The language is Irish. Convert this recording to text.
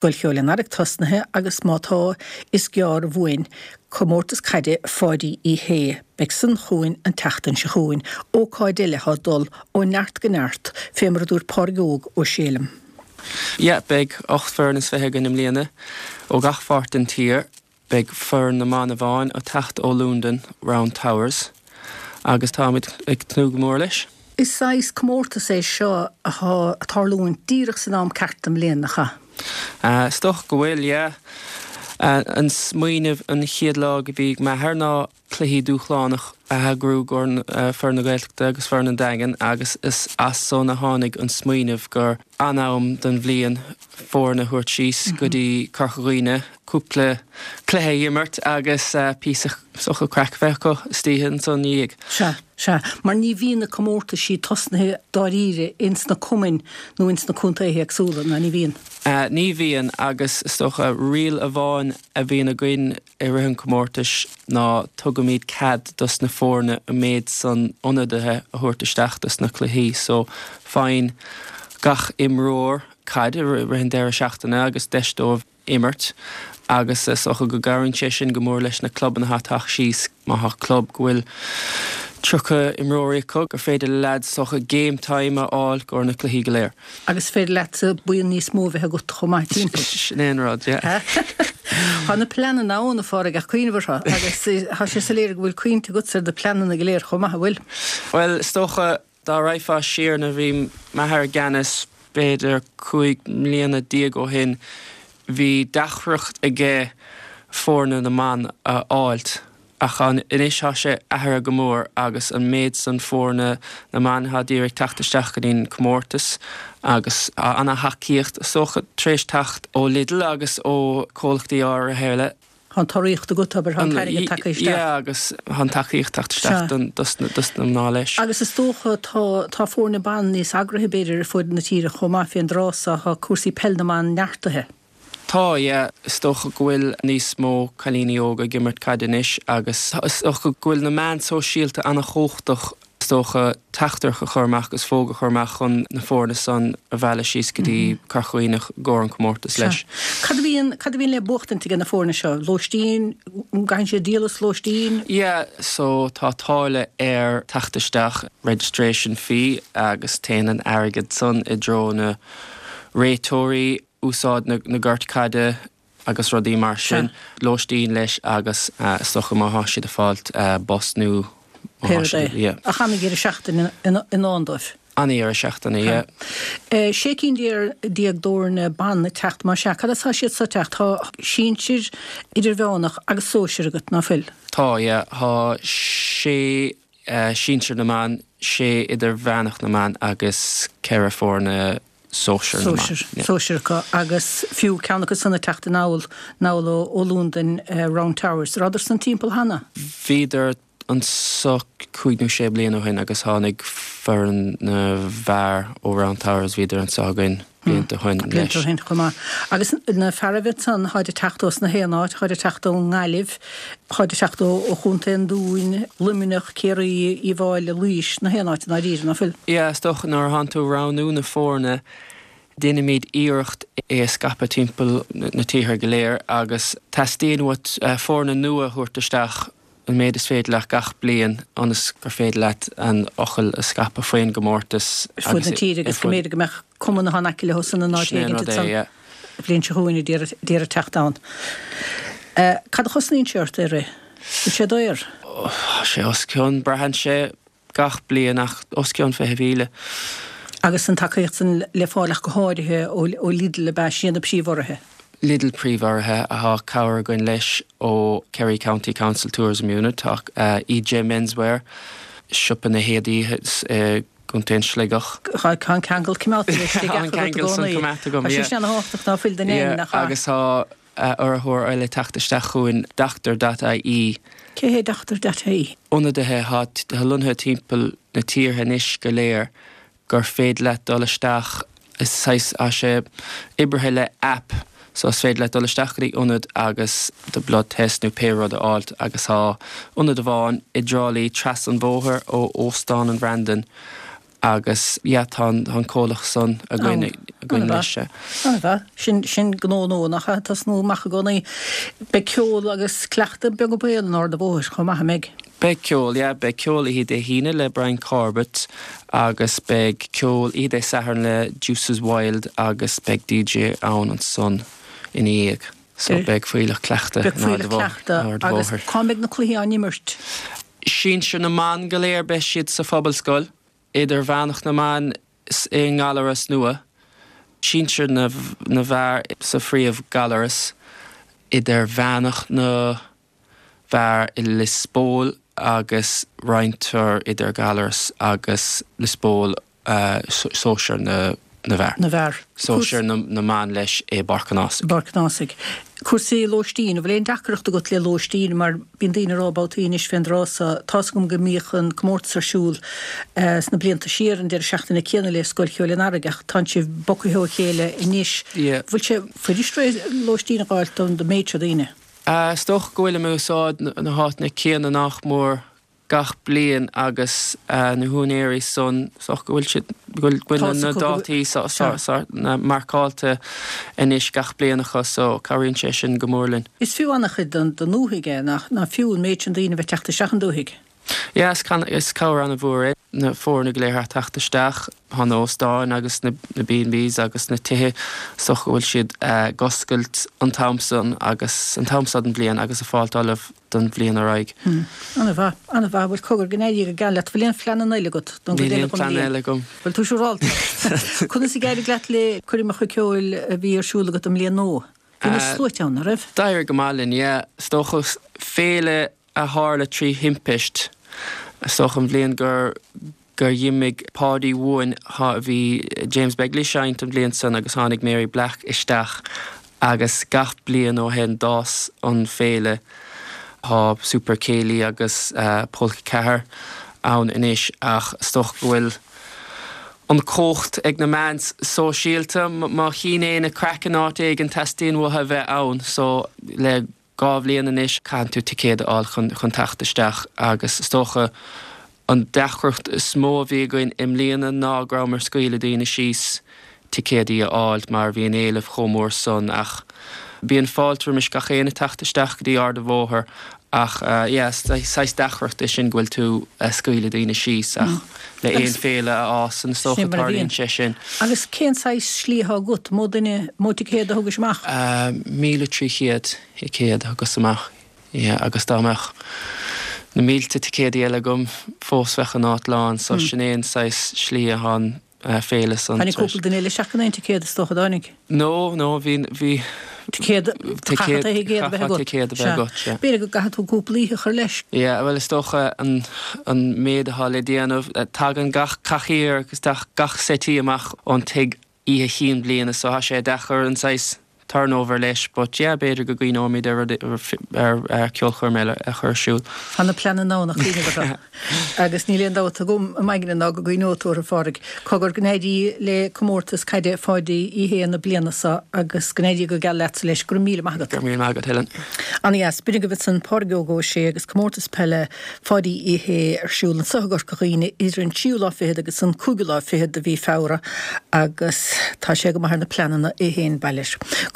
Scoil Cheoil an Earraigh tosnaithe agus má tá, is gearr uainn Comórtas Caide Pháidí Uí Shé. Beidh san chugainn an tseachtain seo chugainn. Ócáid eile thá ag dul ó neart go neart, fé mar a dúirt Pádraig Óg Ó Sé liom. Yeah, beidh 18 foireann is againn i mbliana ó gach pháirt den tír. Beidh foireann na mban amháin ag teacht ó Londain, Round Towers, agus táimid ag tnúth go mór leis. Is saghas comórtas é seo athá ag tarlúint díreach san am ceart den mbliain, nach ea? Is dócha go bhfuil, yeah. An smaoineamh an chéad lá go bhí ag m'athair ná cluichí dúshlánach a eagrú i gcomhair foireann na Gaeltachta agus foireann an Daingin agus is as san a tháinig an smaoineamh gur an-am den bhliain foirne a thabhairt síos go dtí Corca Dhuibhne, cúpla cluiche a imirt agus píosa is dócha craic a bheith acu istoíche ansan ina dhiaidh. Sea, sea. Mar ní bhíonn na comórtaisí tosnaithe dáiríre ins na cumainn nó ins na contaetha éagsúla, ná ní bhíonn? Ní bhíonn agus is dócha riail amháin a bhíonn againn i rith an chomórtais ná tugaimid cead dos na foirne an méid san ionadaithe a thabhairt isteach dos na cluichí so faigheann gach imreoir caid i rith an deireadh seachtaine agus deis dóibh imirt agus is dócha go gcabhraíonn sé sin go mór leis na clubanna atá ag teacht síos. Má thá club go bhfuil 30 imreoirí acu gur féidir le leaids is dócha game time a fháil i gcomhair na cluichí go léir. Agus is féidir leatsa buíon níos mó a bheith agat chomh maith timpeall. Sin é an rud, yeah. Tá na pleananna ann, a Phádraig, ach cuimhneamh orthu agus tá sé soiléir go bhfuil cuimhnte agatsa ar na pleananna go léir chomh maith, an bhfuil? Bhuel, is dócha, dá raghfá siar nuair a bhí m'athair i gceannas, b'fhéidir 15 mbliana ó shin, bhí deacracht aige foirne na mban a fháilt. Ach anois tá sé athraithe go mór agus an méid san foirne na mban atá d'iarraidh teacht isteach go dtí'n comórtas agus tá ana-thacaíocht is dócha tar éis teacht ó Lidl agus ó comhlachtaí áirithe eile. Tá an t-urraíocht agat, abair, tá an t-airgead tagtha isteach. Yeah agus tá an tacaíocht teacht isteach dos na mná leis. Agus is dócha tá tá foirne ban níos eagraithe b'fhéidir ar fud na tíre chomh maith fén dtráth so, tá cúrsaí peil na mban neartaithe. Tá, yeah. Is dócha go bhfuil níos mó cailíní óga ag imirt caide anois agus is dócha go bhfuil na meáin sóisialta an-chumhachtach is dócha teachtaireacht a chur amach agus fógra a chur amach chun na foirne san a mhealladh síos go dtí Corca Dhuibhne i gcomhair an comórtas leis. Cad a bhíonn, cad a bhíonn le buachtaint ag na foirne seo? Lóistín? An gcaitheann siad díol as lóistín? Yeah, so tá táille ar teacht isteach, registration fee, agus téann an airgead san i dtreo na réiteoirí, úsáid na gort caide agus rudaí mar sin, lóistín leis agus is dócha má thá siad ag fáilt bus nó má thá siad, yeah. Ach ana-dheireadh seachtaine i ndán dóibh. Ana-dheireadh seachtaine, yeah. 16 cinn d'fhoirne ban ag teacht, más ea. Cad as tá siad so ag teacht? Tá sinsir, idirmheánach agus sóisir agat, ná fuil? Tá, yeah. Tá sé sinsir na mban, sé idirmheánach na mban agus ceithre foirne sóisir na mban. Sóisir acu agus fiú ceann acu san ag teacht anall anall ó Londain, Round Towers. Rabhadar san timpeall cheana? Bhíodar anso cúig nó sé bliana ó shin agus tháinig foireann na bhfear ó Round Towers, bhíodar anso againn blianta ó shin leis. Blianta ó shin chomh maith. Agus na fearaibh ansan, tháid ag teacht ós na haon áit, tháid ag teacht ón nGaillimh, tháid ag teacht ó Chontae an Dúin, Luimneach, Ciarraí, Uíbh Fháilí, Laois, na haon áit i ndáiríre, ná fuil? Yeah, is dócha nuair atánn tú ag roghnú na foirne, déanaimid iarracht é a scaipeadh timpeall na tíortha go léir agus teastaíonn uait foirne nua a thabhairt isteach an méid is féidir leat gach bliain ionas gur féidir leat an fhocal a scaipeadh faoin gcomórtas ar fud na tíre agus go mb'fhéidir go mbeadh cumann atá in aice leo san in áit Sin é an éigin rud é, yeah. an bhliain seo chugainn a d'iarraidh teacht ann. Cad a chosnaíonn sé ort é a rith? Bhfuil sé daor? Tá sé os cionn, braitheann sé gach bliain ach os cionn 20,000. Agus an tacaíocht san le fáil ach go háirithe ó Lidl ab ea? Sin iad na príomhurraithe? Lidl príomhurraithe. Tá cabhair againn leis ó Kerry County Council Tourism Unit, tá EJ Menswear, siopa na héadaí i gContae an Sligeach. Tá an ceangal coimeádta leis Sligeach agat i gcónaí. Tá sé sin ana-thábhachtach ná fuil don Fheidhm, nach ea? Agus tá urraitheoir eile ag teacht isteach chugainn, Doctor dot ie. Cé hé Doctor dot ie? Ionadaithe atá lonnaithe timpeall na tíortha anois go léir gur féidir leat dul isteach, is saghas, tá sé oibrithe le app so is féidir leat dul isteach go dtí ionad agus do blood test nó pé rud a fháilt agus tá ionad amháin i dTrá Lí trasna an bhóthair ó Óstán an Bhrandan. Agus yeah tá an tá an comhlacht san againn againn anois. An-mhaith. Sin sin gnó nua nach ea? Tosnú amach i gcónaí. Beidh ceol agus cleachtadh beag an baol in Ard a' Bhóthair chomh maith, an mbeidh? Beidh ceol, yeah. Beidh ceol oíche Dé hAoine le Brian Corbett agus beidh ceol oíche Dé Sathairn le Deuces Wild agus beidh DJ ann ansan ina dhiaidh. So beidh fuílleach cleachta in Ard a' Bhóthair. Agus cá mbeidh na cluichí á n-imirt? Sinsir na mban go léir beidh siad sa Phobalscoil, Idirmheánach na mban i nGallaras nua, Sinsir na bhfear sa phríomh-Ghallaras, Idirmheánach na bhfear i Lios Póil agus roinntear idir Gallaras agus Lios Póil sóisear na bhfear. na bhfear. Sóisear na mban leis i bPáirc an Ásaigh. bPáirc an Ásaigh. Cúrsaí lóistín, an bhfuil aon deacracht agat le lóistín mar bíonn daoine ag rá babhtaí anois fén dtráth so, tá's agam go mbíodh an comórtas ar siúl sna blianta siar an deireadh seachtaine céanna le Scoil Cheoil an Earraigh ach tánn sibh bogtha ó chéile anois. Bhfuil sé fuirist lóistín a dh'fháilt don méid seo daoine? Is dócha go bhfuilim ag úsáid na háiteanna céanna nách mór gach bliain agus na húinéirí san, is dócha go bhfuil siad, go bhfuil na dátaí marcáilte anois gach bliain acu so cabhraíonn sé sin go mór linn. Is fiú an-chuid don ndúthaigh é, nach fiú an méid sin daoine a bheith teacht isteach an dúthaigh? Yeah, is cabhair an-mhór é na foirne go léir a theacht isteach. Tá na hóstáin agus na B&Bs agus na tithe, is dócha go bhfuil siad ag oscailt an t-am san agus an t-am seo den bhliain agus ag fáilt ullamh don bhliain ar aghaidh. An-mhaith, an-mhaith. Bhuel, cogar, go n-éirí go geal leat. Bhfuil aon phleananna eile agat don gcuid eile den bhliain? Níl aon phlean eile agam. Bhfuil tú siúrálta? Conas a d'éirigh leat le coirmeacha ceoil a bhí ar siúl agat i mbliain nua? Bhí na sluaite ann, an raibh? D'éirigh go maith linn, yeah. Is dócha féile a tharla trí thimpist, is dócha an bhliain gur gur dh'imigh Páidí uainn bhí James Begley ag seinnt an bhliain san agus tháinig Mary Black isteach agus gach bliain ó shin d'fhás an féile. Tá Super Céilí agus Polca 4 ann anois ach is dócha go bhfuil an chumhacht ag na meáin sóisialta. Má chíonn éinne craic in áit éigin teastaíonn uathu a bheith ann so le 2 bhliain anois, caitheann tú ticéad a fháil chun chun teacht isteach agus is dócha an deacracht is mó a bhí againn i mbliana ná go rabhamar ag scaoileadh daoine síos ticéadaí a fháil mar bhí an éileamh chomh mór san ach bíonn fáilte roimis gach éinne teacht isteach go dtí Ard a' Bhóthair ach yeah is saghas deacracht é sin go bhfuil tú ag scaoileadh daoine síos ach le aon féile a fhásann is dócha tarlaíonn sé sin. Agus cén saghas slí atá agat? Mó duine, mó ticéad a thugais amach? 1,300 ticéad a thugas amach, yeah, agus dá mbeadh na mílte ticéadaí eile agam fós bheadh an áit lán, so sin é an saghas slí atá an féile san. Tháinig cúpla duine eile isteach gan aon ticéad is dócha, dtáinig? No, no, bhí, bhí. Ticéad, chaithfeá ticéad a bheith agat. Ticéad a bheith agat, sea. B'fhéidir go gcaithfidh tú cúpla oíche a chur leis. Yeah, bhuel is dócha an, an méid atá le déanamh, tagann gach cathaoir agus gach settee amach ón tigh oíche chinn bliana so tá sé deacair an saghas turnover leis but yeah b'fhéidir go gcuimhneoimid ar rud, ar, ar ceolchoirm eile a chur ar siúl. Tá na pleananna ann ach cuimhneamh orthu. Agus níl aon dabht agam i m'aigne ná go gcuimhneoidh tú orthu, a Phádraig. Cogar, go n-éirí le comórtas caide Pháidí Uí Shé na bliana seo agus go n-éirí go geal leatsa leis. Go raibh míle maith agat. Go raibh míle maith agat, Helen. Ana-dheas. B'in agaibh ansan Pádraig Óg Ó Sé agus comórtas peile Pháidí Uí Shé ar siúl anso i gCorca Dhuibhne idir an tríú lá fichead agus an cúigiú lá fichead de mhí Feabhra agus tá sé go maith ar na pleananna é féin, bail air.